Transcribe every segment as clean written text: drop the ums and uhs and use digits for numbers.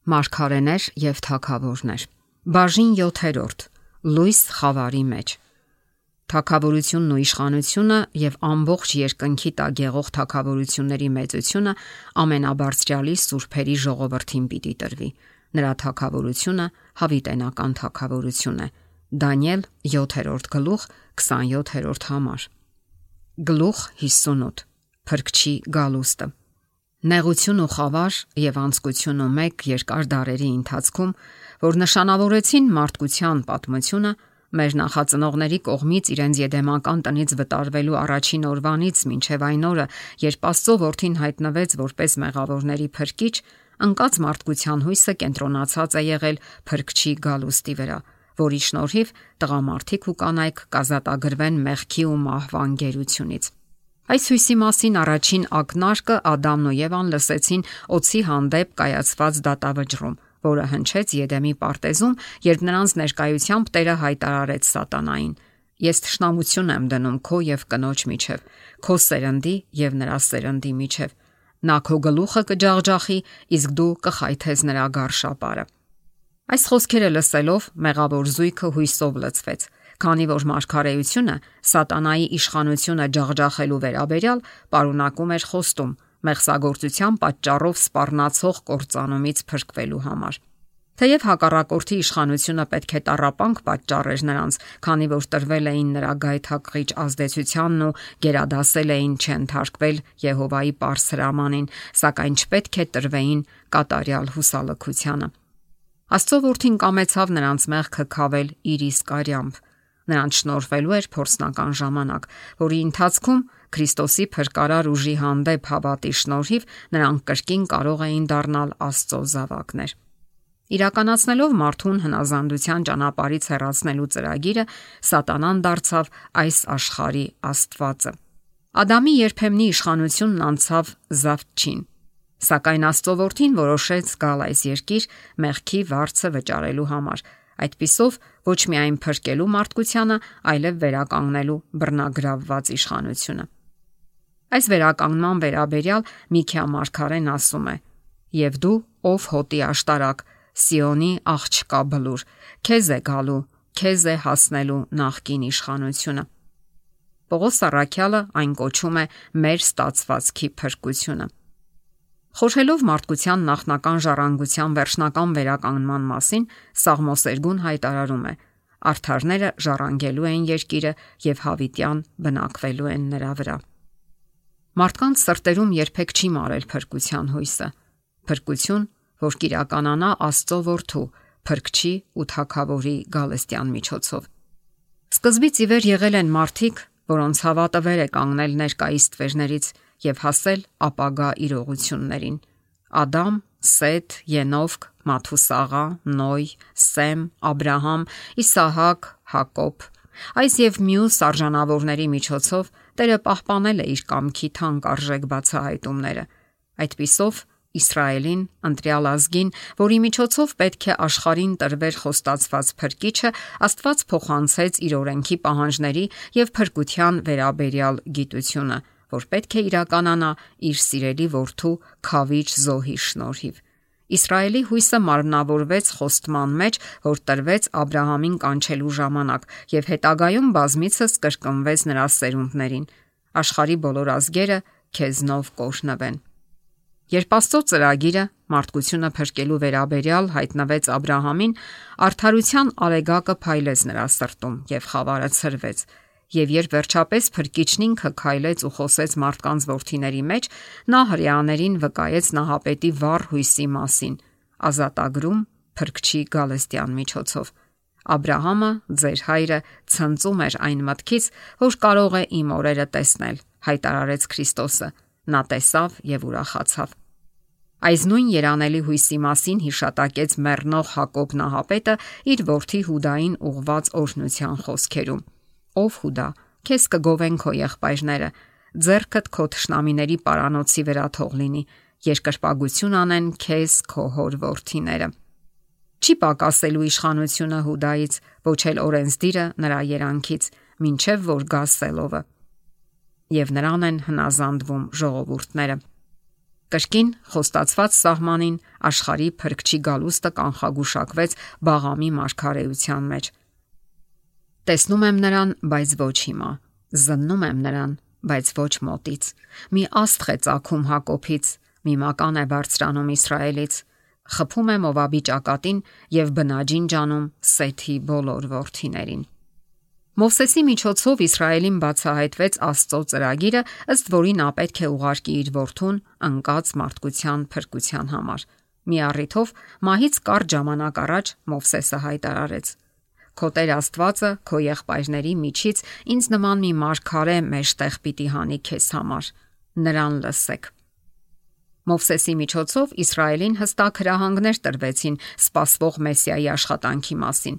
Մարգարեներ եւ թագավորներ։ Բաժին 7. Լույս խավարի մեջ։ Թագավորությունն ու իշխանությունը եւ ամբողջ երկնքի տակ եղող թագավորությունների մեծությունը ամենաբարձրյալի սուրբերի ժողովրդին պիտի տրվի։ Նրա թագավորությունը հավիտենական թագավորություն է։ Դանիել 7. գլուխ 27-րդ համար։ Գլուխ 58։ Փրկչի գալուստը։ Նեղություն ու խավար եւ անձկություն ու մեկ երկար դարերի ընթացքում, որ նշանավորեցին մարդկության պատմությունը, մեր նախածնողների կողմից իրենց եդեմական տնից վտարվելու առաջին օրվանից մինչև այն օրը, երբ Աստծո որդին հայտնվեց որպես մեղավորների փրկիչ, ընկած մարդկության հույսը կենտրոնացած է եղել փրկչի գալուստի վրա, որի շնորհիվ տղամարդիկ ու կանայք կազատագրվեն մեղքի ու մահվան գերությունից։ Այս հույսի մասին առաջին ակնարկը Ադամն ու Եվան լսեցին օձի հանդեպ կայացված դատավճռում, որը հնչեց Եդեմի պարտեզում, երբ նրանց ներկայությամբ Տերը հայտարարեց Սատանային. Ես թշնամություն եմ դնում քո եւ կնոջ միջև, քո սերնդի եւ նրա սերնդի միջև։ Նա քո գլուխը կջախջախի, իսկ դու կխայթես նրա գարշապարը։ Այս խոսքերը լսելով մեղավոր զույգը հույսով լցվեց, քանի որ մարգարեությունը Սատանայի իշխանությունը ջախջախելու վերաբերյալ պարունակում էր խոստում մեղսագործության պատճառով սպառնացող կործանումից փրկվելու համար։ Թեև հակառակորդի իշխանությունը պետք է տառապանք պատճառեր նրանց, քանի որ տրվել էին նրա գայթակղիչ ազդեցությանն ու գերադասել էին չընթարկվել Եհովայի պարզ հրամանին, սակայն չպետք է տրվեին կատարյալ հուսալքությանը։ Աստծո որդին կամեցավ նրանց մեղքը քավել իր իսկ արյամբ։ Նրանց շնորհվելու էր փորձնական ժամանակ, որի ընթացքում Քրիստոսի փրկարար ուժի հանդեպ հավատի շնորհիվ նրանք կրկին կարող էին դառնալ Աստծո զավակներ։ Իրականացնելով մարդուն հնազանդության ճանապարհից հեռացնելու ծրագիրը, Սատանան դարձավ այս աշխարհի աստվածը։ Ադամի երբեմնի իշխանությունն անցավ Զավթչին, սակայն Աստծո որդին որոշեց գալ այս երկիր մեղքի վարձը վճարելու համար, այդպիսով ոչ միայն փրկելու մարդկությանը, այլև վերականգնելու բռնագրավված իշխանությունը։ Այս վերականգնման վերաբերյալ Միքիա մարգարեն ասում է. «Եվ դու, ով հոտի աշտարակ, Սիոնի աղջկա բլուր, քեզ է գալու, քեզ է հասնելու նախկին իշխանությունը»։ Պողոս առաքյալը այն կոչում է մեր ստացվածքի փրկությունը։ Խորհելով մարդկության նախնական ժառանգության վերջնական վերականգնման մասին, Սաղմոս 2-ն հայտարարում է. Արդարները ժառանգելու են երկիրը եւ հավիտյան բնակվելու են նրա վրա։ Մարդկանց սրտերում երբեք չի մարել փրկության հույսը։ Փրկություն, որ կիրականանա Աստծո որդու, փրկչի ու թագավորի գալստյան միջոցով։ Սկզբից ի վեր եղել են մարդիկ, որոնց հավատը վեր է կանգնել ներկայիս տվերներից եւ հասել ապագա իրողություններին։ Ադամ, Սեթ, Ենովք, Մաթուսաղա, Նոյ, Սեմ, Աբրահամ, Իսահակ, Հակոբ։ Այս եւ մյուս արժանավորների միջոցով Տերը պահպանել է իր կամքի թանկ արժեք բացահայտումները։ Այդպիսով Իսրայելին, ընտրյալ ազգին, որի միջոցով պետք է աշխարհին տրվեր խոստացված փրկիչը, Աստված փոխանցեց իր օրենքի պահանջների եւ փրկության վերաբերյալ գիտությունը, որ պետք է իրականանա իր սիրելի որդու քավիչ զոհի շնորհիվ։ Իսրայելի հույսը մարմնավորվեց խոստման մեջ, որ տրվեց Աբրահամին կանչելու ժամանակ եւ հետագայում բազմիցս կրկնվեց նրա սերունդներին։ Աշխարհի բոլոր ազգերը քեզնով կօրհնվեն։ Երբ Աստծո ծրագիրը մարդկությունը փրկելու վերաբերյալ հայտնվեց Աբրահամին, արդարության արեգակը փայլեց նրա սրտում եւ խավարը ցրվեց։ Եվ երբ վերջապես փրկիչն ինքը քայլեց ու խոսեց մարդկանց որդիների մեջ, նա հրեաներին վկայեց նահապետի վառ հույսի մասին, ազատագրում փրկչի գալստյան միջոցով։ Աբրահամը, ձեր հայրը, ցնծում էր այն մտքից, որ կարող է իմ օրերը տեսնել, հայտարարեց Քրիստոսը։ Նա տեսավ եւ ուրախացավ։ Այս նույն երանելի հույսի մասին հիշատակեց մեռնող Հակոբ նահապետը իր որդի Հուդային ուղված օրհնության խոսքերում. Ով Հուդա, քեզ կգովեն քո եղբայրները, ձեռքդ քո թշնամիների պարանոցի վրա թող լինի, երկրպագություն անեն քեզ քո հոր որդիները։ Չի պակասելու իշխանությունը Հուդայից, ոչ էլ օրենսդիրը նրա երանքից, մինչև որ գա Սելովը։ Եվ նրան են հնազանդվում ժողովուրդները։ Կրկին խոստացված սահմանին աշխարհի փրկչի գալուստը կանխագուշակվեց Բաղամի մարգարեության մեջ։ Տեսնում եմ նրան, բայց ոչ հիմա, զննում եմ նրան, բայց ոչ մոտից։ Մի աստղ է ծագում Հակոբից, մի մական է բարձրանում Իսրայելից, խփում է Մովաբի ճակատին եւ բնաջին ջանում Սեթի բոլոր որդիներին։ Մովսեսի միջոցով Իսրայելին բացահայտվեց Աստծո ծրագիրը, ըստ որի նա պետք է ուղարկի իր որդուն ընկած մարդկության փրկության համար։ Մի առիթով մահից կարճ ժամանակ առաջ Մովսեսը հայտարարեց. Քո Տեր Աստվածը քո եղբայրների միջից ինձ նման մի մարգարե մեջտեղ պիտի հանի քեզ համար, նրան լսեք։ Մովսեսի միջոցով Իսրայելին հստակ հրահանգներ տրվեցին սպասվող Մեսիայի աշխատանքի մասին։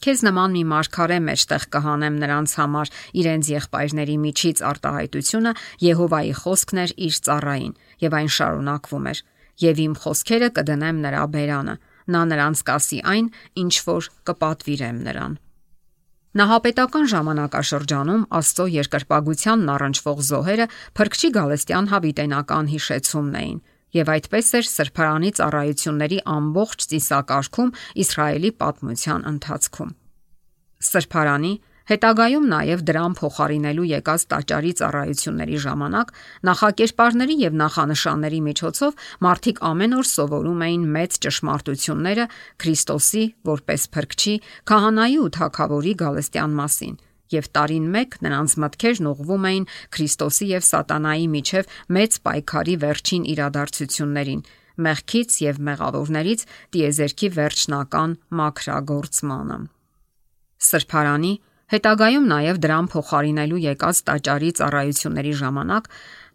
Քեզ նման մի մարգարե մեջտեղ կհանեմ նրանց համար, իրենց եղբայրների միջից արտահայտությունը Եհովայի խոսքն էր իր ծառային, եւ այն շարունակվում էր. եւ իմ խոսքերը կդնեմ նրա բերանը, նա նրանց կասի այն, ինչ որ կպատվիրեմ նրան։ Նահապետական ժամանակաշրջանում Աստծո երկրպագությանն առնչվող զոհերը փրկչի գալստյան հավիտենական հիշեցումն էին, եւ այդպես էր սրբարանի ծառայությունների ամբողջ ծիսակարգում Իսրայելի պատմության ընթացքում։ Սրբարանի, հետագայում նաև դրան փոխարինելու եկած տաճարի ծառայությունների ժամանակ նախակերպարների եւ նախանշանների միջոցով մարդիկ ամեն օր սովորում էին մեծ ճշմարտությունները Քրիստոսի որպես փրկչի, քահանայի ու թագավորի գալստյան մասին, եւ տարին մեկ նրանց մտքերն ուղղվում էին Քրիստոսի եւ Սատանայի միջև մեծ պայքարի վերջին իրադարձություններին, մեղքից եւ մեղավորներից տիեզերքի վերջնական մաքրագործմանը։ Սրբարանի, հետագայում նաև դրան փոխարինելու եկած տաճարի ծառայությունների ժամանակ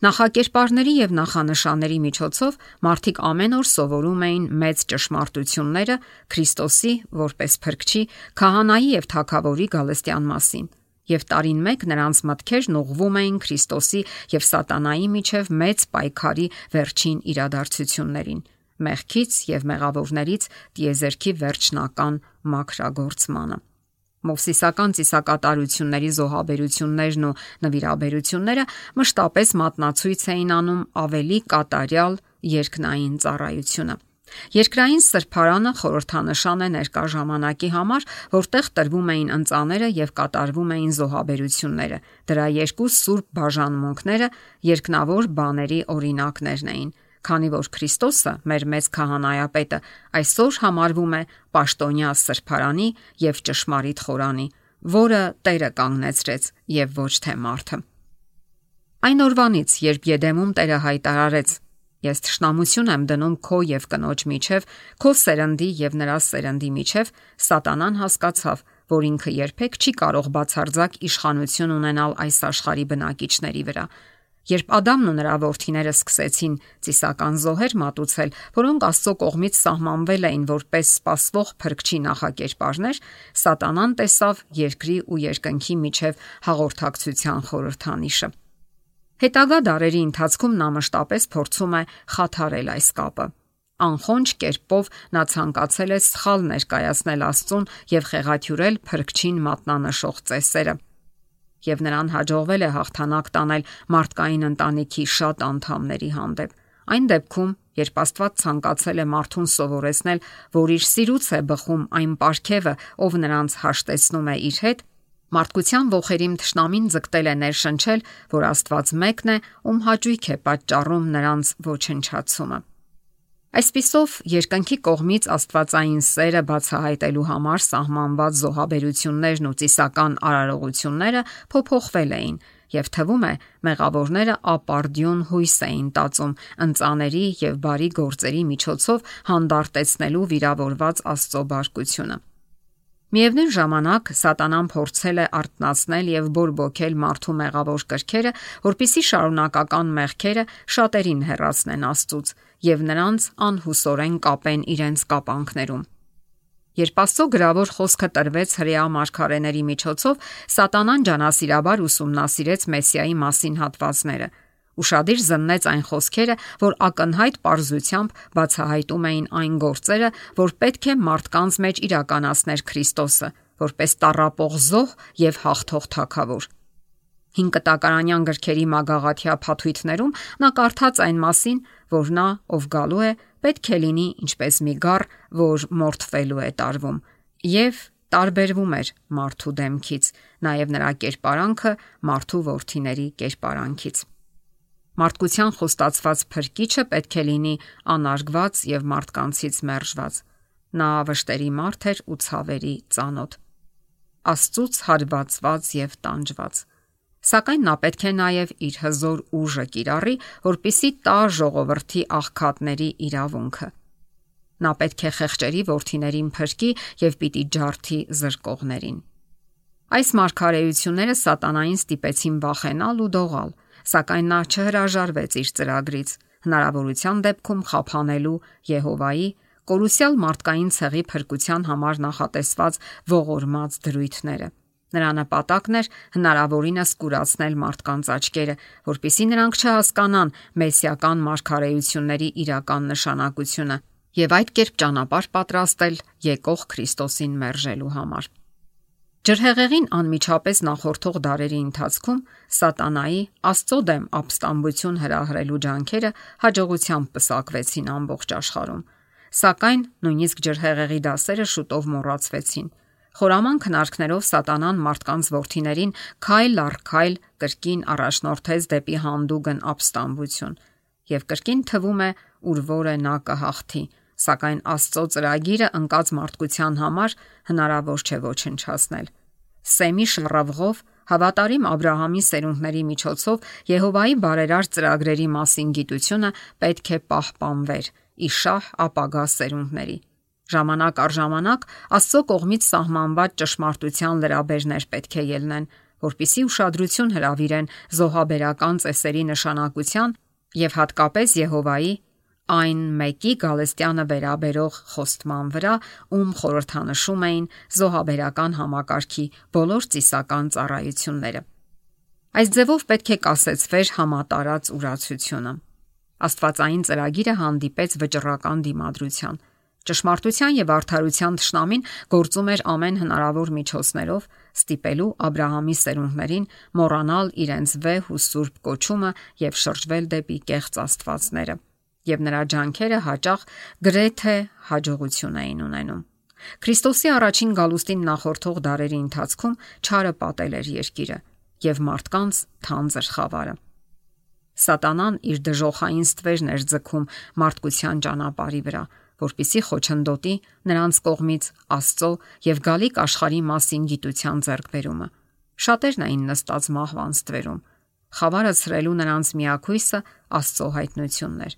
նախակերպարների եւ նախանշանների միջոցով մարդիկ ամեն օր սովորում էին մեծ ճշմարտությունները Քրիստոսի որպես փրկչի, քահանայի եւ թագավորի գալստյան մասին, եւ տարին մեկ նրանց մտքերն ուղղվում էին Քրիստոսի եւ Սատանայի միջև մեծ պայքարի վերջին իրադարձություններին, մեղքից եւ մեղավորներից տիեզերքի վերջնական մաքրագործմանը։ Մովսիսական ծիսակատարությունների զոհաբերություններն ու նվիրաբերությունները մշտապես մատնացույց էին անում ավելի կատարյալ երկնային ծառայությունը։ Երկրային սրբարանը խորհրդանշան է ներկա ժամանակի համար, որտեղ տրվում էին ընծաները եւ կատարվում էին զոհաբերությունները։ Դրա երկու սուրբ բաժանմունքները երկնավոր բաների օրինակներն էին, քանի որ Քրիստոսը, մեր մեծ քահանայապետը, այսօր համարվում է պաշտոնյա սրբարանի եւ ճշմարիտ խորանի, որը Տերը կանգնեցրեց եւ ոչ թե մարդը։ Այն օրվանից, երբ Եդեմում Տերը հայտարարեց. Ես թշնամություն եմ դնում քո եւ կնոջ միջև, քո սերնդի եւ նրա սերնդի միջև, Սատանան հասկացավ, որ ինքը երբեք չի կարող բացարձակ իշխանություն ունենալ այս աշխարհի բնակիչների վրա։ Երբ Ադամն ու նրա որդիները սկսեցին ծիսական զոհեր մատուցել, որոնք Աստծո կողմից սահմանվել էին որպես սպասվող փրկչի նախակերպարներ, Սատանան տեսավ երկրի ու երկնքի միջև հաղորդակցության խորհրդանիշը։ Հետագա դարերի ընթացքում նա մշտապես փորձում է խաթարել այս կապը։ Անխոնջ կերպով նա ցանկացել է սխալ ներկայացնել Աստծուն եւ խեղաթյուրել փրկչին մատնանշող ծեսերը։ Եվ նրան հաջողվել է հաղթանակ տանել մարդկային ընտանիքի շատ անդամների հանդեպ։ Այն դեպքում, երբ Աստված ցանկացել է մարդուն սովորեցնել, որ իր սիրուց է բխում այն պարգևը, ով նրանց հաշտեցնում է իր հետ, մարդկության ողերիմ թշնամին ձգտել է ներշնչել, որ Աստված մեկն է, ում հաճույք է պատճառում նրանց ոչնչացումը։ Այսպիսով, երկնքի կողմից աստվածային սերը բացահայտելու համար սահմանված զոհաբերություններն ու ծիսական արարողությունները փոփոխվել էին, եւ թվում է մեղավորները ապարդյուն հույս էին տածում ընծաների եւ բարի գործերի միջոցով հանդարտեցնելու վիրավորված Աստծո բարկությունը։ Միևնույն ժամանակ Սատանան փորձել է արթնացնել եւ բորբոքել մարդու մեղավոր կրքերը, որpիսի շարունակական մեղքերը շատերին հեռացնեն Աստծուց եւ նրանց անհուսորեն կապեն իրենց կապանքներում։ Երբ Աստծո գրավոր խոսքը տրվեց հրեա մարգարեների միջոցով, Սատանան ջանասիրաբար ուսումնասիրեց Մեսիայի մասին հատվածները։ Ուշադիր զննեց այն խոսքերը, որ ակնհայտ պարզությամբ բացահայտում էին այն գործերը, որ պետք է մարդկանց մեջ իրականացներ Քրիստոսը, որպես տառապող զոհ եւ հաղթող թագավոր։ Հին կտակարանյան գրքերի մագաղաթյա փաթույթներում նա կարդաց այն մասին, որ նա, ով գալու է, պետք է լինի ինչպես մի գառ, որ մորթվելու է տարվում, եւ տարբերվում էր մարդու դեմքից, նաև նրա կերպարանքը մարդու որդիների կերպարանքից։ Մարդկության խոստացված փրկիչը պետք է լինի անարգված եւ մարդկանցից մերժված։ Նա վշտերի մարդ էր ու ցավերի ծանոթ, Աստծուց հարվածված եւ տանջված։ Սակայն նա պետք է նաև իր հզոր ուժը կիրառի, որպիսի տա ժողովրդի աղքատների իրավունքը։ Նա պետք է խեղճերի որդիներին փրկի եւ պիտի ջարդի զրկողներին։ Այս մարգարեությունները սատանային ստիպեցին վախենալ ու դողալ, սակայն նա չհրաժարվեց իր ծրագրից, հնարավորության դեպքում խափանելու Եհովայի կորուսյալ մարդկային ցեղի փրկության համար նախատեսված ողորմած դրույթները։ Նրա նպատակն էր հնարավորինս կուրացնել մարդկանց աչքերը, որpիսի նրանք չհասկանան մեսիական մարգարեությունների իրական նշանակությունը եւ այդ կերպ ճանապարհ պատրաստել եկող Քրիստոսին մերժելու համար։ Ջրհեղեղին անմիջապես նախորդող դարերի ընթացքում սատանայի Աստծո դեմ ապստամբություն հրահրելու ջանքերը հաջողությամբ պսակվեցին ամբողջ աշխարհում, սակայն նույնիսկ ջրհեղեղի դասերը շուտով մոռացվեցին։ Խորաման քնարքներով սատանան մարդկանց որդիներին քայլ առ քայլ կրկին առաջնորդեց դեպի հանդուգն ապստամբություն եւ կրկին թվում է ուր որը նա կհաղթի, սակայն Աստծո ծրագիրը ընկած մարդկության համար հնարավոր չէ ոչնչացնել։ Սեմի շռավղով հավատարիմ Աբրահամի սերունդների միջոցով Եհովայի բարերար ծրագրերի մասին գիտությունը պետք է պահպանվեր իշահ ապագա սերունդների։ Ժամանակ առ ժամանակ Աստծո կողմից սահմանված ճշմարտության լրաբերներ պետք է ելնեն, որpիսի ուշադրություն հրավիրեն զոհաբերական ծեսերի նշանակության եւ հատկապես Եհովայի այն մեկի Գալստյանը վերաբերող խոստման վրա, ում խորհրդանշում էին զոհաբերական համակարգի բոլոր ծիսական ծառայությունները։ Այս ձևով պետք է կասեցվեր համատարած ուրացությունը։ Աստվածային ծրագիրը հանդիպեց վճռական դիմադրության։ Ճշմարտության եւ արդարության թշնամին գործում էր ամեն հնարավոր միջոցներով, ստիպելու Աբրահամի սերունդներին մոռանալ իրենց վեհ ու սուրբ կոչումը եւ շրջվել դեպի կեղծ աստվածները, եւ նրա ջանքերը հաճախ գրեթե հաջողություն էին ունենում։ Քրիստոսի առաջին գալուստին նախորդող դարերի ընթացքում չարը պատել էր երկիրը եւ մարդկանց թանձր խավարը։ Սատանան իր դժոխային ստվերն էր ձգում մարդկության ճանապարհի վրա, որպիսի խոչընդոտի նրանց կողմից Աստծո եւ գալիք աշխարհի մասին գիտության ձեռքբերումը։ Շատերն էին նստած մահվան ստվերում։ Խավարը ցրելու նրանց միակույսը Աստծո հայտնությունն էր։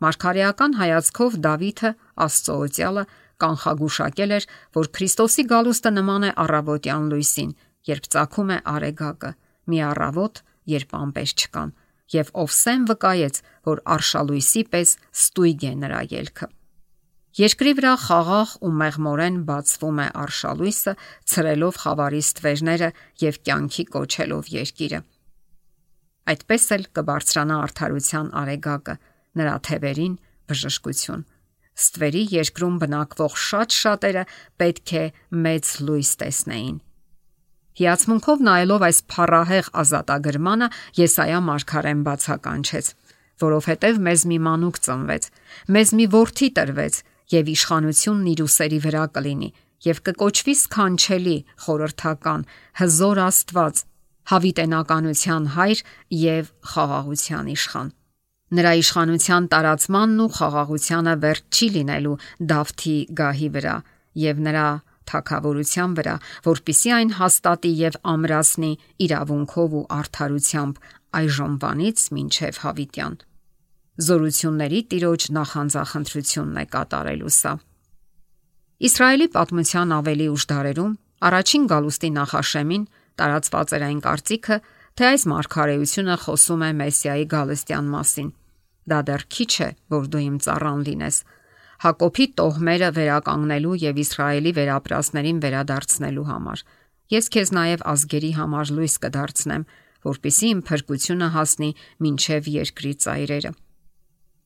Մարգարեական հայացքով Դավիթը Աստծո օծյալը կանխագուշակել էր, որ Քրիստոսի գալուստը նման է առավոտյան լույսին, երբ ծագում է արեգակը, մի առավոտ, երբ ամպեր չկան, եւ Օվսեն վկայեց, որ արշալույսի պես ստույգ է նրա ելքը։ Երկրի վրա խաղաղ ու մեղմորեն բացվում է արշալույսը, ցրելով խավարի ստվերները եւ կյանքի կոչելով երկիրը։ Այդպես էլ կբարձրանա արդարության արեգակը, նրա թևերին բժշկություն։ Ստվերի երկրում բնակվող շատ շատերը պետք է մեծ լույս տեսնեին։ Հիացմունքով նայելով այս փառահեղ ազատագրմանը Եսայա մարգարեն բացականչեց, որովհետև մեզ մի մանուկ ծնվեց, մեզ մի որդի տրվեց, եւ իշխանությունն իր ուսերի վրա կլինի, եւ կկոչվի սքանչելի, խորհրդական, հզոր Աստված, հավիտենականության հայր եւ խաղաղության իշխան։ Նրա իշխանության տարածմանն ու խաղաղությանը վերջ չի լինելու Դավթի գահի վրա եւ նրա թագավորության վրա, որpիսի այն հաստատի եւ ամրացնի իրավունքով ու արդարությամբ այժմվանից մինչև հավիտյան։ Զորությունների Տիրոջ նախանձախնդրությունն է կատարելու սա։ Իսրայելի պատմության ավելի ուշ դարերում առաջին գալուստի նախաշեմին տարածված էր այն կարծիքը, թե այս մարգարեությունը խոսում է Մեսիայի գալստյան մասին։ Դա դեռ քիչ է, որ դու իմ ծառան լինես, Հակոբի տոհմերը վերականգնելու եւ Իսրայելի վերապրածներին վերադարձնելու համար։ Ես քեզ նաեւ ազգերի համար լույս կդարձնեմ, որpիսի իմ փրկությունը հասնի մինչև երկրի ծայրերը։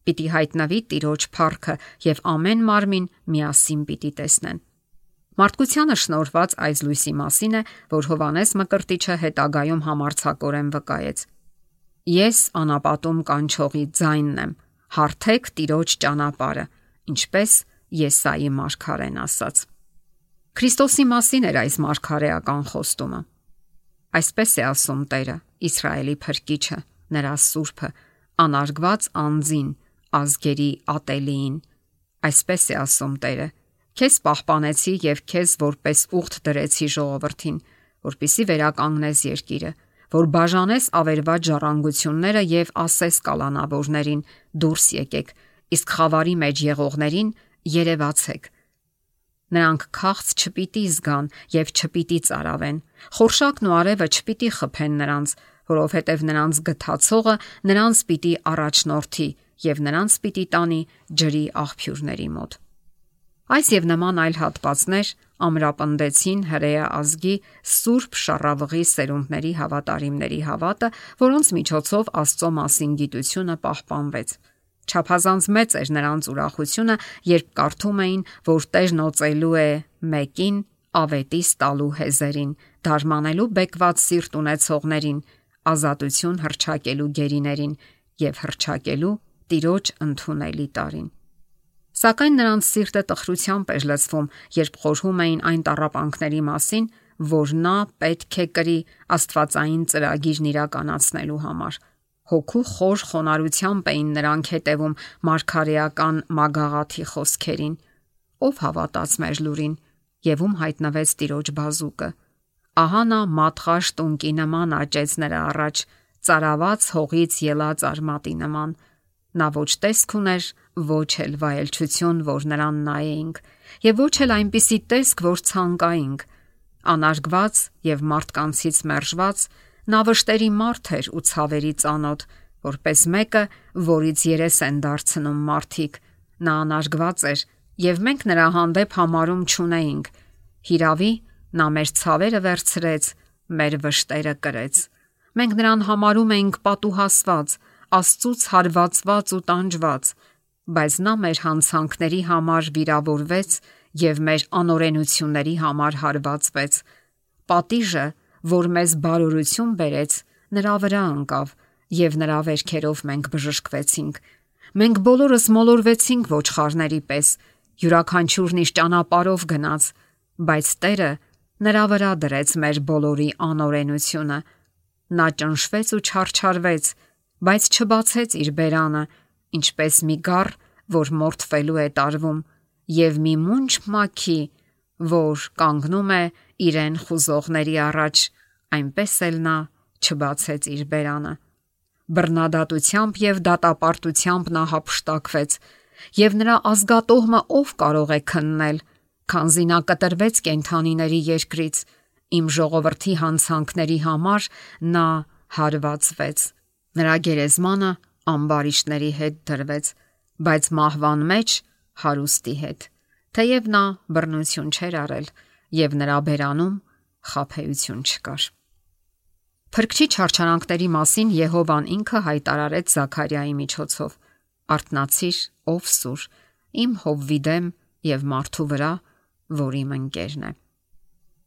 Պիտի հայտնվի Տիրոջ փառքը եւ ամեն մարմին միասին պիտի տեսնեն։ Մարդկությանը շնորհված այս լույսի մասին է, որ Հովհաննես Մկրտիչը հետագայում համարձակորեն վկայեց. Ես անապատում կանչողի ձայնն եմ, հարթեք Տիրոջ ճանապարհը, ինչպես Եսայի մարգարեն ասաց։ Քրիստոսի մասին էր այս մարգարեական խոստումը։ Այսպես է ասում Տերը, Իսրայելի Փրկիչը, նրա Սուրբը, անարգված անձին, ազգերի ատելիին։ Այսպես է ասում Տերը. Քեզ պահպանեցի եւ քեզ որպես ուխտ դրեցի ժողովրդին, որպիսի վերականգնես երկիրը, որ բաժանես ավերված ժառանգությունները եւ ասես կալանավորներին՝ դուրս եկեք, իսկ խավարի մեջ եղողներին երևացեք։ Նրանք քաղց չպիտի զգան եւ չպիտի ծարավեն, խորշակն ու արևը չպիտի խփեն նրանց, որովհետեւ նրանց գթացողը նրանց պիտի առաջնորդի եւ նրանց պիտի տանի ջրի աղբյուրների մոտ։ Այս եւ նման այլ հատվածներ ամրապնդեցին հրեա ազգի սուրբ շառավղի սերունդների հավատարիմների հավատը, որոնց միջոցով Աստծո մասին գիտությունը պահպանվեց։ Չափազանց մեծ էր նրանց ուրախությունը, երբ կարդում էին, որ Տերն օծելու է մեկին ավետիս տալու հեզերին, դարմանելու բեկված սիրտ ունեցողներին, ազատություն հռչակելու գերիներին եւ հռչակելու Տիրոջ ընդունելի տարին։ Սակայն նրանց սիրտը տխրությամբ էր լցվում, երբ խորհում էին այն տառապանքների մասին, որ նա պետք է կրի աստվածային ծրագիրն իրականացնելու համար։ Հոգու խոր խոնարհությամբ էին նրանք հետևում մարգարեական մագաղաթի խոսքերին։ Ով հավատաց մեր լուրին, եւ ում հայտնվեց Տիրոջ բազուկը։ Ահա նա մատղաշ տունկի նման աճեց նրա առաջ, ծարաված հողից ելած արմատի նման։ Նա ոչ տեսք ուներ, ոչ էլ վայելչություն, որ նրան նայեինք, եւ ոչ էլ այնպիսի տեսք, որ ցանկայինք։ Անարգված եւ մարդկանցից մերժված, նա վշտերի մարդ էր ու ցավերի ծանոթ, որպես մեկը, որից երես են դարձնում մարդիկ։ Նա անարգված էր, եւ մենք նրա հանդեպ համարում չունեինք։ Հիրավի, նա մեր ցավերը վերցրեց, մեր վշտերը կրեց։ Մենք նրան համարում էինք պատուհասված, Աստծուց հարվածված ու տանջված, բայց նա մեր հանցանքների համար վիրավորվեց եւ մեր անօրենությունների համար հարվածվեց։ Պատիժը, որ մեզ բարօրություն բերեց, նրա վրա ընկավ եւ նրա վերքերով մենք բժշկվեցինք։ Մենք բոլորս մոլորվեցինք ոչխարների պես, յուրաքանչյուրն իր ճանապարհով գնաց, բայց Տերը նրա վրա դրեց մեր բոլորի անօրենությունը։ Նա ճնշվեց ու չարչարվեց, բայց չբացեց իր բերանը, ինչպես մի գառ, որ մորթվելու է տարվում, եւ մի մունջ մաքի, որ կանգնում է իրեն խուզողների առաջ, այնպես էլ նա չբացեց իր բերանը։ Բռնադատությամբ եւ դատապարտությամբ նա հափշտակվեց, եւ նրա ազգատոհմը ով կարող է քննել, քանզի նա կտրվեց կենդանիների երկրից, իմ ժողովրդի հանցանքների համար նա հարվածվեց։ Նրա գերեզմանը ամբարիշտների հետ դրվեց, բայց մահվան մեջ հարուստի հետ, թեև նա բռնություն չէր արել եւ նրա բերանում խաբեություն չկար։ Փրկչի չարչարանքների մասին Եհովան ինքը հայտարարեց Զաքարիայի միջոցով. «Արթնացիր, ով սուր, իմ Հովվիդեմ եւ մարդու վրա, որ իմ ընկերն է»։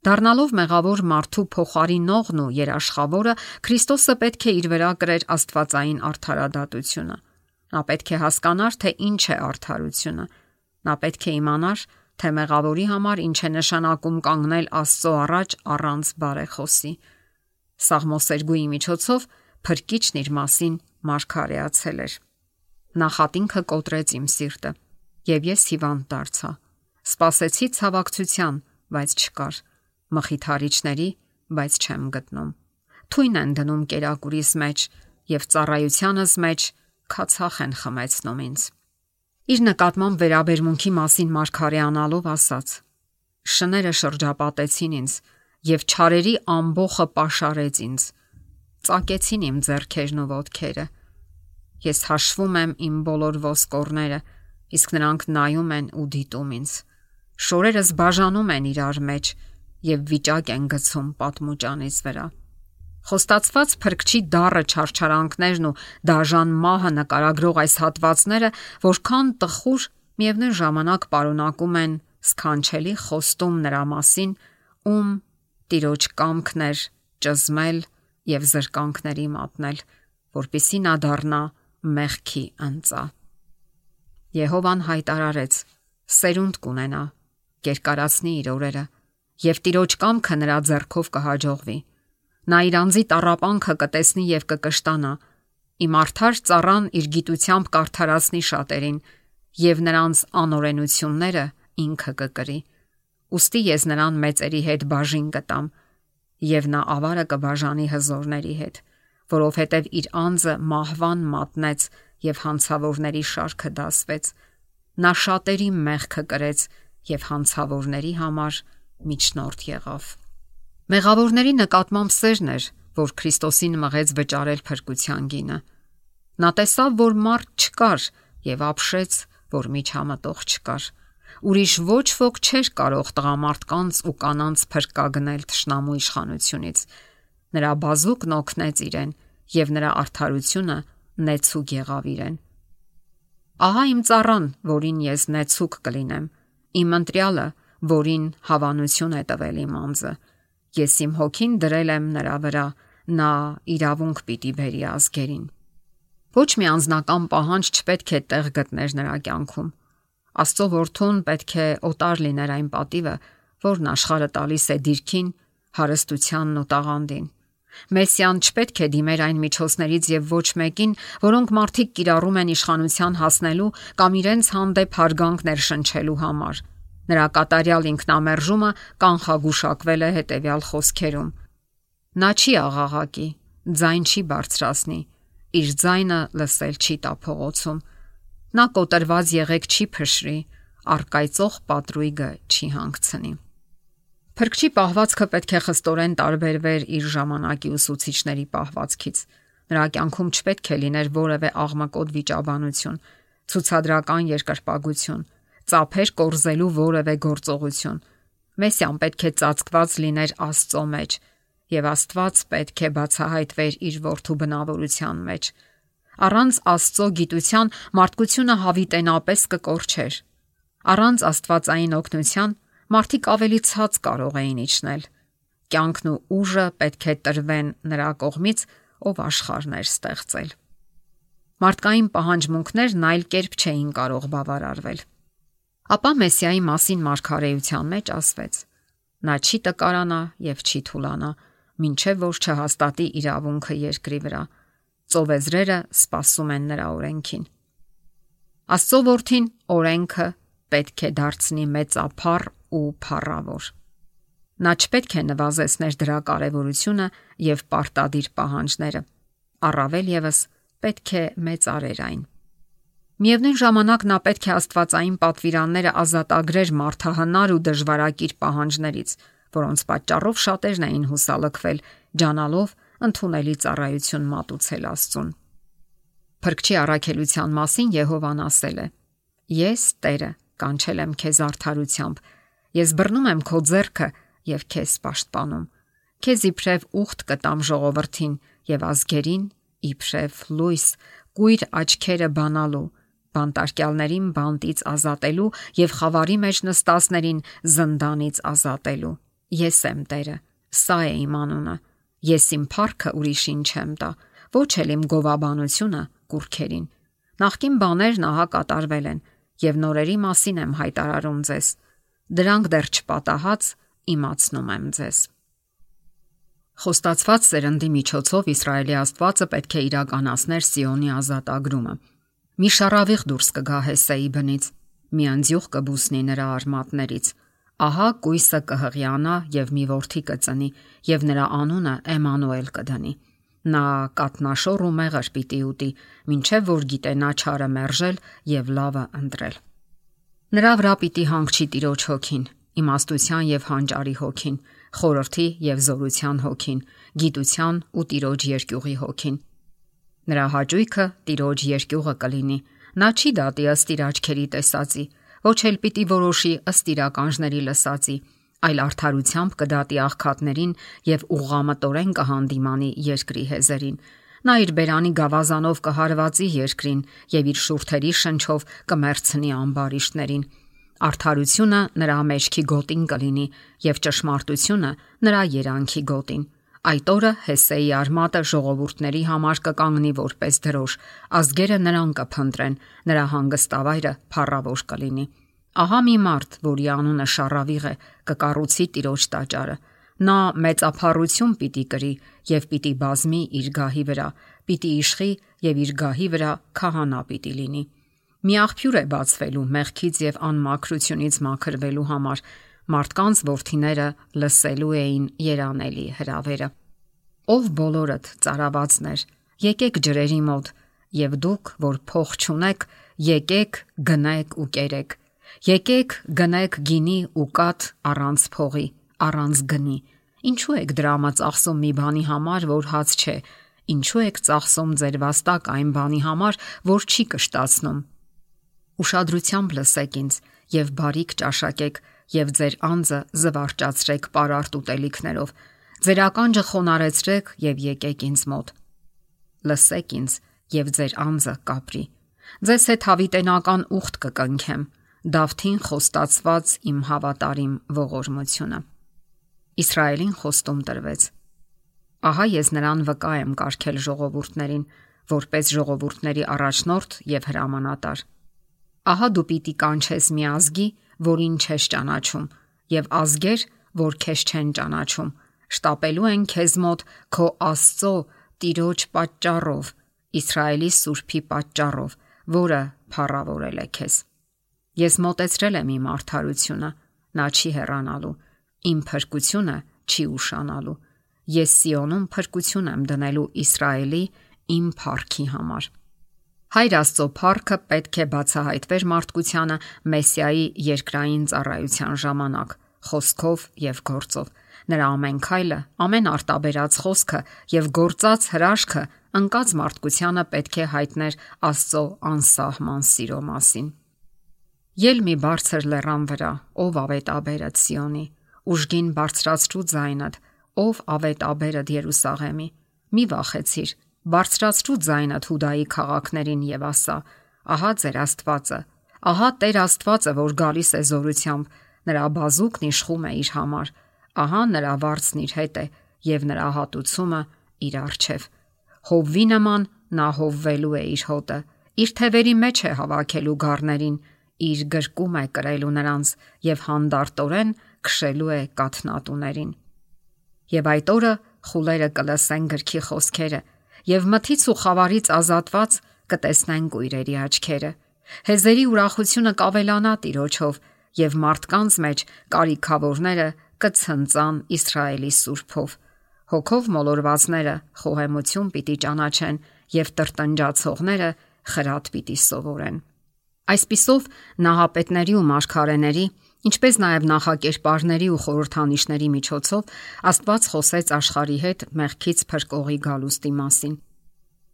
Դառնալով մեղավոր մարդու փոխարինողն ու երաշխավորը, Քրիստոսը պետք է իր վրա կրեր աստվածային արդարադատությունը։ Նա պետք է հասկանար, թե ինչ է արդարությունը։ Նա պետք է իմանար, թե մեղավորի համար ինչ է նշանակում կանգնել Աստծո առաջ առանց բարեխոսի։ Սաղմոսերգուի միջոցով Փրկիչն իր մասին մարգարեացել էր. Նախատինքը կոտրեց իմ սիրտը, եւ ես հիվանդ դարձա։ Սպասեցի ցավակցության, բայց չկար, մխիթարիչների, բայց չեմ գտնում։ Թույն են դնում կերակուրիս մեջ եւ ծառայությանս մեջ քացախ են խմեցնում ինձ։ Իր նկատմամբ վերաբերմունքի մասին մարգարեանալով ասաց. Շները շրջապատեցին ինձ եւ չարերի ամբոխը պաշարեց ինձ։ Ծակեցին իմ ձեռքերն ու ոտքերը։ Ես հաշվում եմ իմ բոլոր ոսկորները, իսկ նրանք նայում են ու դիտում ինձ։ Շորերս բաժանում են իրար մեջ եւ վիճակ են գցում պատմուճանից վրա։ Խոստացված Փրկչի դառը չարչարանքներն ու դաժան մահը նկարագրող այս հատվածները, որքան տխուր, միևնույն ժամանակ պարունակում են սքանչելի խոստում նրա մասին, ում Տիրոջ կամքն էր ճզմել եւ զրկանքների մատնել, որպիսի նա դառնա մեղքի ընծա։ Եհովան հայտարարեց. սերունդ կունենա, կերկարացնի իր օրերը, եւ Տիրոջ կամքը նրա ձեռքով կհաջողվի։ Նա իր անձի տառապանքը կտեսնի եւ կկշտանա։ Իմ արդար ծառան իր գիտությամբ կարդարացնի շատերին, եւ նրանց անօրենությունները ինքը կկրի։ Ուստի ես նրան մեծերի հետ բաժին կտամ, եւ նա ավարը կբաժանի հզորների հետ, որովհետեւ իր անձը մահվան մատնեց եւ հանցավորների շարքը դասվեց։ Նա շատերի մեղքը կրեց եւ հանցավորների համար միջնորդ եղավ։ Մեղավորների նկատմամբ սերն էր, որ Քրիստոսին մղեց վճարել փրկության գինը։ Նա տեսավ, որ մարդ չկար եւ ապշեց, որ միջամտող չկար։ Ուրիշ ոչ ոք չէր կարող տղամարդկանց ու կանանց փրկագնել թշնամու իշխանությունից։ Նրա բազուկն օգնեց իրեն եւ նրա արդարությունը նեցուկ եղավ իրեն։ Ահա իմ ծառան, որին ես նեցուկ կլինեմ, իմ ընտրյալը, որին հավանություն է տվել իմ անձը։ Ես իմ հոգին դրել եմ նրա վրա, նա իրավունք պիտի բերի ազգերին։ Ոչ մի անձնական պահանջ չպետք է տեղ գտներ նրա կյանքում։ Աստծո որդուն պետք է օտար լիներ այն պատիվը, որն աշխարհը տալիս է դիրքին, հարստությանն ու տաղանդին։ Մեսիան չպետք է դիմեր այն միջոցներից եւ ոչ մեկին, որոնք մարդիկ կիրառում են իշխանության հասնելու կամ իրենց հանդեպ հարգանք ներշնչելու համար։ Նրա կատարյալ ինքնամերժումը կանխագուշակվել է հետևյալ խոսքերում. նա չի աղաղակի, ձայն չի բարձրացնի, իր ձայնը լսել չի տա փողոցում։ Նա կոտրված եղեք չի փշրի, առկայծող պատրույգը չի հանգցնի։ Փրկչի պահվածքը պետք է խստորեն տարբերվեր իր ժամանակի ուսուցիչների պահվածքից։ Նրա կյանքում չպետք է լիներ որևէ աղմկոտ վիճաբանություն, ցուցադրական երկրպագություն, ծափեր կորզելու որևէ գործողություն։ Մեսիան պետք է ծածկված լիներ Աստծո մեջ, եւ Աստված պետք է բացահայտվեր իր որդու բնավորության մեջ։ Առանց Աստծո գիտության մարդկությունը հավիտենապես կկորչեր։ Առանց աստվածային օգնության մարդիկ ավելի ցած կարող էին իջնել։ Կյանքն ու ուժը պետք է տրվեն նրա կողմից, ով աշխարհներ ստեղծել։ Մարդկային պահանջմունքներն այլ կերպ չէին կարող բավարարվել։ Ապա Մեսիայի մասին մարգարեության մեջ ասվեց. նա չի տկարանա եւ չի թուլանա, մինչեւ որ չհաստատի իրավունքը երկրի վրա։ Ծովեզրերը սպասում են նրա օրենքին։ Աստծո որդին օրենքը պետք է դարձնի մեծափառ ու փառավոր։ Նա չպետք է նվազեցներ դրա կարևորությունը եւ պարտադիր պահանջները։ Առավել եւս պետք է մեծարեր այն։ Միևնույն ժամանակ նա պետք է աստվածային պատվիրանները ազատագրեր մարդահնար ու դժվարակիր պահանջներից, որոնց պատճառով շատերն էին հուսալքվել, ջանալով ընդունելի ծառայություն մատուցել Աստծուն։ Փրկչի առաքելության մասին Եհովան ասել է. Ես Տերը կանչել եմ քեզ արդարությամբ, ես բռնում եմ քո ձեռքը եւ քեզ պաշտպանում։ Քեզ իբրև ուխտ կտամ ժողովրդին եւ ազգերին իբրև լույս, կույր աչքերը բանալու, բանտարկյալներին բանտից ազատելու եւ խավարի մեջ նստածներին զնդանից ազատելու։ Ես եմ Տերը, սա է իմ անունը։ Ես իմ փառքը ուրիշին չեմ տա, ոչ էլ իմ գովաբանությունը կուրքերին։ Նախկին բաներն ահա կատարվել են եւ նորերի մասին եմ հայտարարում ձեզ։ Դրանք դեռ չպատահած իմացնում եմ ձեզ։ Խոստացված սերնդի միջոցով Իսրայելի Աստվածը պետք է իրականացներ Սիոնի ազատագրումը։ Մի շարավիղ դուրս կգա Հեսեի բնից, մի անձյուղ կբուսնի նրա արմատներից։ Ահա կույսը կհղիանա եւ մի որդի կծնի եւ նրա անունը Էմանուել կդնի։ Նա կատնաշոր ու մեղր պիտի ուտի, մինչև որ գիտենա չարը մերժել եւ լավը ընտրել։ Նրա վրա պիտի հանգչի Տիրոջ հոգին, իմաստության եւ հանճարի հոգին, խորհրդի եւ զորության հոգին, գիտության ու Տիրոջ երկյուղի հոգին։ Նրա հաճույքը Տիրոջ երկյուղը կլինի։ Նա չի դատի ըստ իր աչքերի տեսածի, ոչ էլ պիտի որոշի ըստ իր ականջների լսածի, այլ արդարությամբ կդատի աղքատներին եւ ուղղամտորեն կհանդիմանի երկրի հեզերին։ Նա իր բերանի գավազանով կհարվածի երկրին եւ իր շուրթերի շնչով կմերցնի ամբարիշտներին։ Արդարությունը նրա մեջքի գոտին կլինի եւ ճշմարտությունը նրա երանքի գոտին։ Այդ օրը Հեսեի արմատը ժողովուրդների համար կկանգնի որպես դրոշ, ազգերը նրան կփնտրեն, նրա հանգստավայրը փառավոր կլինի։ Ահա մի մարդ, որի անունը Շառավիղ է, կկառուցի Տիրոջ տաճարը։ Նա մեծափառություն պիտի կրի եւ պիտի բազմի իր գահի վրա, պիտի իշխի եւ իր գահի վրա քահանա պիտի լինի։ Մի աղբյուր է բացվելու մեղքից եւ անմաքրությունից մաքրվելու համար։ Մարդկանց որդիները լսելու էին երանելի հրավերը։ Ով բոլորդ ծարավացներ, եկեք ջրերի մոտ, եւ դուք, որ փող չունեք, եկեք գնեք ու կերեք։ Եկեք գնեք գինի ու կաթ առանց փողի, առանց գնի։ Ինչու եք դրամը ծախսում մի բանի համար, որ հաց չէ։ Ինչու եք ծախսում ձեր վաստակ այն բանի համար, որ չի կշտացնում։ Ուշադրությամբ լսեք ինձ եւ բարիք ճաշակեք եւ ձեր անձը զվարճացրեք պարարտ ուտելիքներով։ Ձեր ականջը խոնարեցրեք եւ եկեք ինձ մոտ։ Լսեք ինձ եւ ձեր անձը կապրի։ Ձեզ հետ հավիտենական ուխտ կկնքեմ, Դավթին խոստացված իմ հավատարիմ ողորմությունը։ Իսրայելին խոստում տրվեց. Ահա ես նրան վկա եմ կարգել ժողովուրդներին, որպես ժողովուրդների առաջնորդ եւ հրամանատար։ Ահա դու պիտի կանչես մի ազգի, որին չես ճանաչում, եւ ազգեր, որ քեզ չեն ճանաչում, շտապելու են քեզ մոտ քո Աստծո Տիրոջ պատճառով, Իսրայելի Սուրբի պատճառով, որը փառավորել է քեզ։ Ես մոտեցրել եմ իմ արդարությունը, նա չի հեռանալու, իմ փրկությունը չի ուշանալու։ Ես Սիոնում փրկություն եմ դնելու Իսրայելի իմ փառքի համար։ Հայր Աստծո փառքը պետք է բացահայտվեր մարդկությանը Մեսիայի երկրային ծառայության ժամանակ, խոսքով եւ գործով։ Նրա ամեն քայլը, ամեն արտաբերած խոսքը եւ գործած հրաշքը ընկած մարդկությանը պետք է հայտներ Աստծո անսահման սիրո մասին։ Ել մի բարձր լեռան վրա, ով ավետաբերդ Սիոնի, ուժգին բարձրացրու ձայնդ, ով ավետաբերդ Երուսաղեմի, մի վախեցիր, բարձրացրու ձայնդ Հուդայի քաղաքներին եւ ասա. ահա ձեր Աստվածը, ահա Տեր Աստվածը, որ գալիս է զորությամբ, նրա բազուկն իշխում է իր համար, ահա նրա վարձն իր հետ է եւ նրա հատուցումը իր առջև։ Հովվի նման նա հովվելու է իր հոտը, իր թևերի մեջ է հավաքելու գառներին, իր գրկում է կրելու նրանց եւ հանդարտորեն քշելու է կաթնատուներին։ Եվ այդ օրը խուլերը կլսեն գրքի խոսքերը եւ մթից ու խավարից ազատված կտեսնեն կույրերի աչքերը։ Հեզերի ուրախությունը կավելանա Տիրոջով եւ մարդկանց մեջ կարիքավորները կցնծան Իսրայելի Սուրբով։ Հոգով մոլորվածները խոհեմություն պիտի ճանաչեն եւ տրտնջացողները խրատ պիտի սովորեն։ Այսպիսով նահապետների ու մարգարեների, ինչպես նաև նախակերպարների ու խորհրդանիշների միջոցով Աստված խոսեց աշխարհի հետ մեղքից փրկողի գալուստի մասին։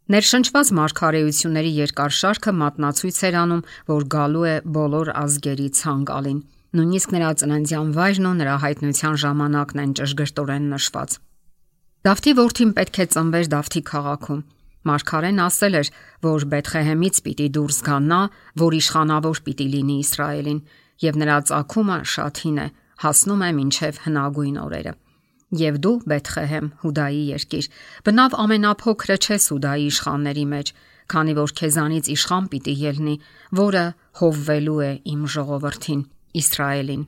Ներշնչված մարգարեությունների երկար շարքը մատնացույց էր անում, որ գալու է բոլոր ազգերի ցանկալին։ Նույնիսկ նրա ծննդյան վայրն ու նրա հայտնության ժամանակն են ճշգրտորեն նշված։ Դավթի որդին պետք է ծնվեր Դավթի քաղաքում։ Մարգարեն ասել էր, որ Բեթխեհեմից պիտի դուրս գա նա, որ իշխանավոր պիտի լինի Իսրայելին, եւ նրա ծագումը շատ հին է, հասնում է մինչև հնագույն օրերը։ Եվ դու, Բեթխեհեմ, Հուդայի երկիր, բնավ ամենափոքրը չես Հուդայի իշխանների մեջ, քանի որ քեզանից իշխան պիտի ելնի, որը հովվելու է իմ ժողովրդին, Իսրայելին։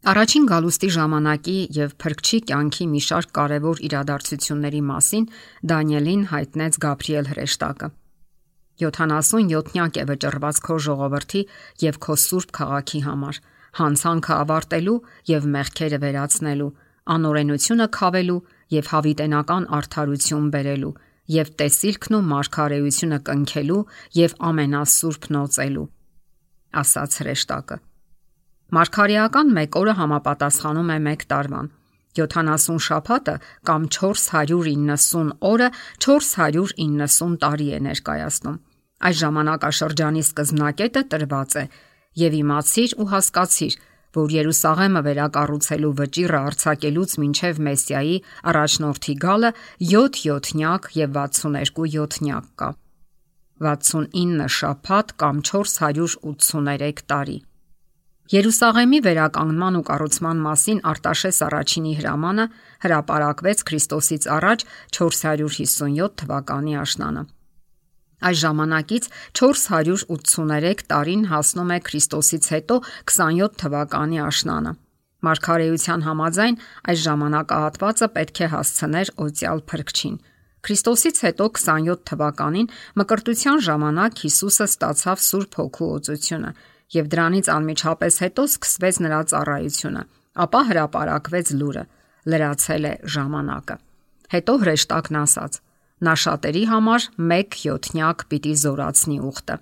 Առաջին գալուստի ժամանակի եւ փրկչի կյանքի մի շարք կարևոր իրադարձությունների մասին Դանիելին հայտնեց Գաբրիել հրեշտակը։ 77-նյակ է վճռված քո ժողովրդի եւ քո սուրբ քաղաքի համար, հանցանքը ավարտելու եւ մեղքերը վերացնելու, անօրենությունը քավելու եւ հավիտենական արդարություն բերելու եւ տեսիլքն ու մարգարեությունը կնքելու եւ ամենասուրբն օծելու, ասաց հրեշտակը։ Մարգարեական 1 օրը համապատասխանում է 1 տարվան, 70 շաբաթը կամ 490 օրը 490 տարի է ներկայացնում։ Այս ժամանակաշրջանի սկզբնակետը տրված է եւ իմացիր ու հասկացիր, որ Երուսաղեմը վերակառուցելու վճիռը արձակելուց մինչև Մեսիայի առաջնորդի գալը 7 յոթնյակ եւ 62 յոթնյակ կա։ 69 շաբաթ կամ 483 տարի։ Երուսաղեմի վերականգնման ու կառուցման մասին Արտաշես առաջինի հրամանը հրապարակվեց Քրիստոսից առաջ 457 թվականի աշնանը։ Այս ժամանակից 483 տարին հասնում է Քրիստոսից հետո 27 թվականի աշնանը։ Մարգարեության համաձայն այս ժամանակահատվածը պետք է հասցներ օծյալ Փրկչին։ Քրիստոսից հետո 27 թվականին մկրտության ժամանակ Հիսուսը ստացավ Սուրբ Հոգու օծությունը եւ դրանից անմիջապես հետո սկսվեց նրա ծառայությունը, ապա հրապարակվեց լուրը. լրացել է ժամանակը։ Հետո հրեշտակն ասաց. նա շատերի համար 1/7 պիտի զորացնի ուխտը։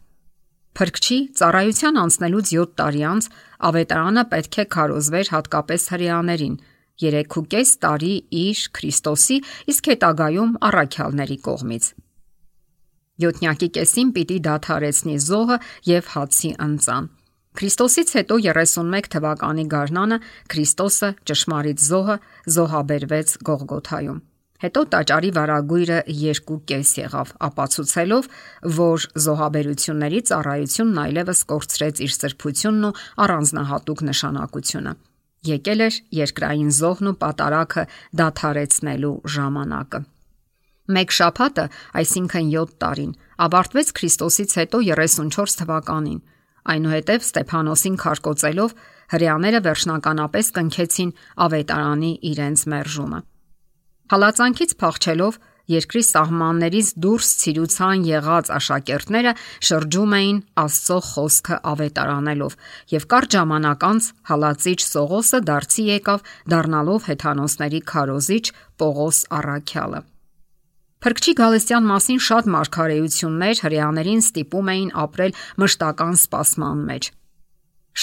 Փրկչի ծառայության անցնելուց 7 տարի անց ավետարանը պետք է քարոզվեր հատկապես հրեաներին 3.5 տարի իր Քրիստոսի, իսկ հետագայում առաքյալների կողմից։ Յոթնյակի կեսին պիտի դադարեցնի զոհը եւ հացի ընծան։ Քրիստոսից հետո 31 թվականի գարնանը Քրիստոսը, ճշմարիտ զոհը, զոհաբերվեց Գողգոթայում։ Հետո տաճարի վարագույրը 2.5 եղավ, ապացուցելով, որ զոհաբերությունների ծառայությունն այլևս կորցրեց իր սրբությունն ու առանձնահատուկ նշանակությունը։ Եկել էր երկրային զոհն ու պատարագը դադարեցնելու ժամանակը։ Մեկ շաբաթը, այսինքն 7 տարին, ավարտվեց Քրիստոսից հետո 34 թվականին։ Այնուհետև Ստեփանոսին քարկոծելով հրեաները վերջնականապես կնքեցին ավետարանի իրենց մերժումը։ Հալածանքից փախչելով երկրի սահմաններից դուրս ցիրուցան եղած աշակերտները շրջում էին Աստծո խոսքը ավետարանելով եւ կարճ ժամանակ անց հալածիչ Սողոսը դարձի եկավ դառնալով հեթանոսների քարոզիչ Պողոս առաքյալը։ Փրկչի գալստյան մասին շատ մարգարեություններ հրեաներին ստիպում էին ապրել մշտական սպասման մեջ։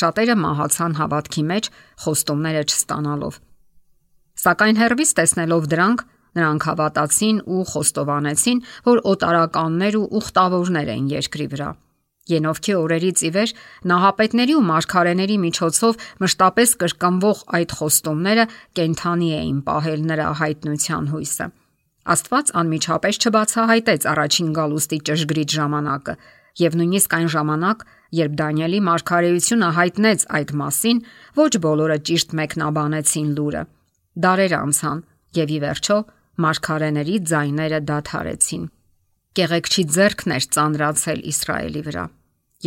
Շատերը մահացան հավատքի մեջ խոստումները չստանալով։ Սակայն հեռվից տեսնելով դրանք, նրանք հավատացին ու խոստովանեցին, որ օտարականներ ու ուխտավորներ են երկրի վրա։ Ենովքի օրերից ի վեր նահապետների ու մարգարեների միջոցով մշտապես կրկնվող այդ խոստումները կենթանի էին պահել նրա հայտնության հույսը։ Աստված անմիջապես չբացահայտեց առաջին գալուստի ճշգրիտ ժամանակը, եւ նույնիսկ այն ժամանակ, երբ Դանիելի մարգարեությունը հայտնեց այդ մասին, ոչ բոլորը ճիշտ մեկնաբանեցին լուրը։ Դարեր անցան, եւ ի վերջո մարգարեների ձայները դադարեցին։ Կեղեքչի ձեռքն էր ծանրացել Իսրայելի վրա։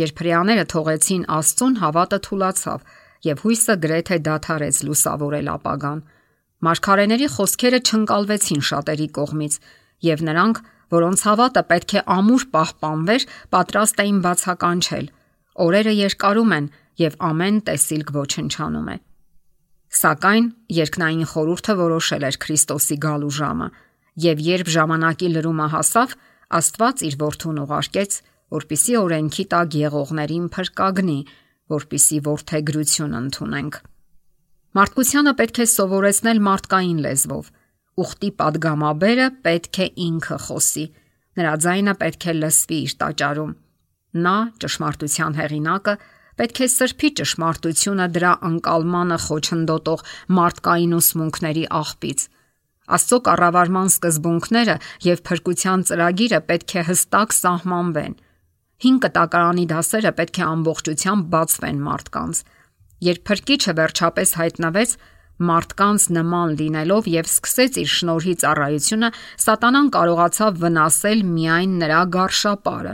Երբ հրեաները թողեցին Աստծուն, հավատը թուլացավ եւ հույսը գրեթե դադարեց լուսավորել ապագան։ Մարգարեների խոսքերը չընկալվեցին շատերի կողմից, եւ նրանք, որոնց հավատը պետք է ամուր պահպանվեր, պատրաստ էին բացականչել։ Օրերը երկարում են եւ ամեն տեսիլք ոչնչանում է։ Սակայն երկնային խորհուրդը որոշել էր Քրիստոսի գալու ժամը, եւ երբ ժամանակի լրումը հասավ, Աստված իր որդուն ուղարկեց, որպիսի օրենքի տակ եղողներին փրկագնի, որպիսի որդեգրություն ընդունենք։ Մարդկությանը պետք է սովորեցնել մարդկային լեզվով։ Ուխտի падգամաբերը պետք է ինքը խոսի։ Նրա ձայնը պետք է լսվի իր տաճարում։ Նա, ճշմարտության հեղինակը, պետք է սրբի ճշմարտությունը դրա ընկալմանը խոչընդոտող մարդկային ուսմունքների աղբից։ Աստծո կառավարման սկզբունքները եւ փրկության ծրագիրը պետք է հստակ սահմանվեն։ 5 կտակարանի դասերը պետք է ամբողջությամբ բացվեն մարդկանց։ Երբ Փրկիչը վերջապես հայտնվեց, մարդկանց նման լինելով եւ սկսեց իր շնորհի ծառայությունը, Սատանան կարողացավ վնասել միայն նրա գարշապարը։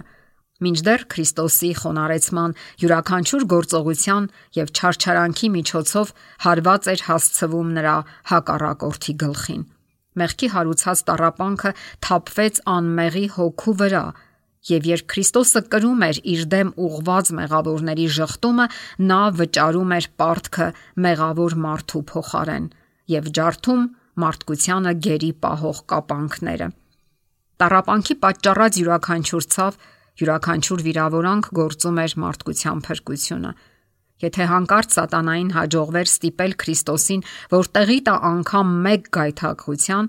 Մինչդեռ Քրիստոսի խոնարհեցման յուրաքանչյուր գործողության եւ չարչարանքի միջոցով հարված էր հասցվում նրա հակառակորդի գլխին։ Մեղքի հարուցած տառապանքը թափվեց անմեղի հոգու վրա, եւ երբ Քրիստոսը կրում էր իր դեմ ուղղված մեղավորների ժխտումը, նա վճարում էր պարտքը մեղավոր մարդու փոխարեն եւ ջարդում մարդկությանը գերի պահող կապանքները։ Տառապանքի պատճառած յուրաքանչյուր ցավ, յուրաքանչյուր վիրավորանք գործում էր մարդկության փրկությունը։ Եթե հանկարծ Սատանային հաջողվեր ստիպել Քրիստոսին, որ տեղի տա անգամ մեկ գայթակղության,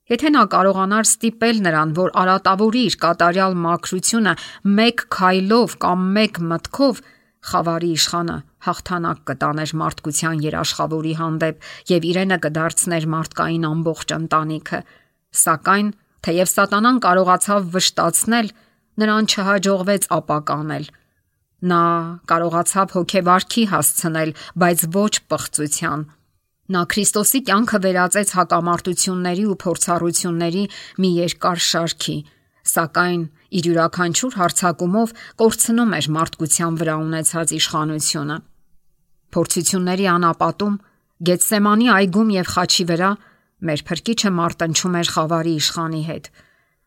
եթե նա կարողանար ստիպել նրան, որ արատավորի իր կատարյալ մաքրությունը մեկ քայլով կամ մեկ մտքով, խավարի իշխանը հաղթանակ կտաներ մարդկության երաշխավորի հանդեպ եւ իրենը կդարձներ մարդկային ամբողջ ընտանիքը։ Սակայն, թեև Սատանան կարողացավ վշտացնել, նրան չհաջողվեց ապականել։ Նա կարողացավ հոգեվարքի հասցնել, բայց ոչ պղծության։ Նա Քրիստոսի կյանքը վերածեց հակամարտությունների ու փորձառությունների մի երկար շարքի, սակայն իր յուրաքանչյուր հարձակումով կորցնում էր մարդկության վրա ունեցած իշխանությունը։ Փորձությունների անապատում, Գեթսեմանի այգում եւ խաչի վրա մեր Փրկիչը մարտնչում էր խավարի իշխանի հետ։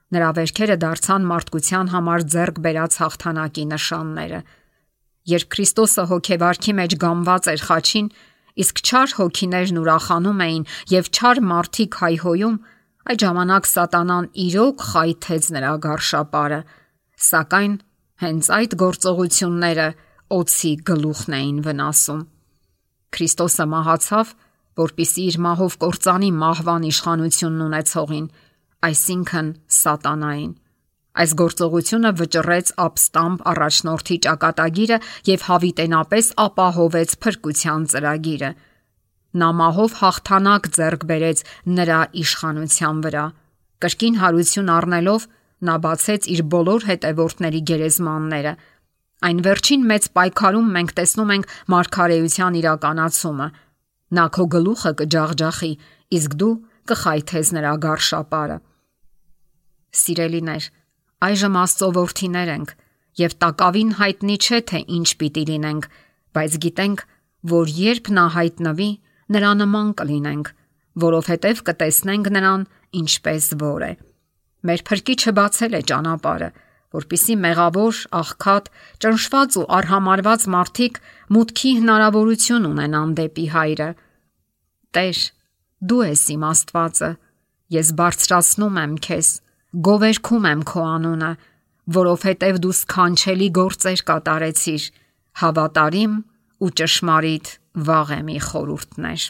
Նրա վերքերը դարձան մարդկության համար ձեռք բերած հաղթանակի նշանները։ Երբ Քրիստոսը հոգեվարքի մեջ գամված էր խաչին, իսկ չար հոգիներն ուրախանում էին եւ չար մարդիկ հայհոյում, այդ ժամանակ Սատանան իրոք խայթեց նրա գարշապարը, սակայն հենց այդ գործողությունները օձի գլուխն էին վնասում։ Քրիստոսը մահացավ, որպիսի իր մահով կործանի մահվան իշխանությունն ունեցողին, այսինքն Սատանային։ Այս գործողությունը վճռեց ապստամբ առաջնորդի ճակատագիրը եւ հավիտենապես ապահովեց փրկության ծրագիրը։ Նա մահով հաղթանակ ձեռք բերեց նրա իշխանության վրա։ Կրկին հարություն առնելով, նա բացեց իր բոլոր հետևորդների գերեզմանները։ Այն վերջին մեծ պայքարում մենք տեսնում ենք մարգարեության իրականացումը։ Նա քո գլուխը կջախջախի, իսկ դու կխայթես նրա գարշապարը։ Սիրելիներ, այժմ Աստծո որդիներ ենք եւ տակավին հայտնի չէ թե ինչ պիտի լինենք, բայց գիտենք, որ երբ նա հայտնվի, նրա նման կլինենք, որովհետեւ կտեսնենք նրան ինչպես որ է։ Մեր Փրկիչը բացել է ճանապարհը, որպիսի մեղավոր, աղքատ, ճնշված ու արհամարված մարդիկ մուտքի հնարավորություն ունենան դեպի Հայրը։ Տեր, դու ես իմ Աստվածը, ես բարձրացնում եմ քեզ, գովերգում եմ քո անունը, որովհետև դու սքանչելի գործեր կատարեցիր, հավատարիմ ու ճշմարիտ վաղեմի խորհուրդներ։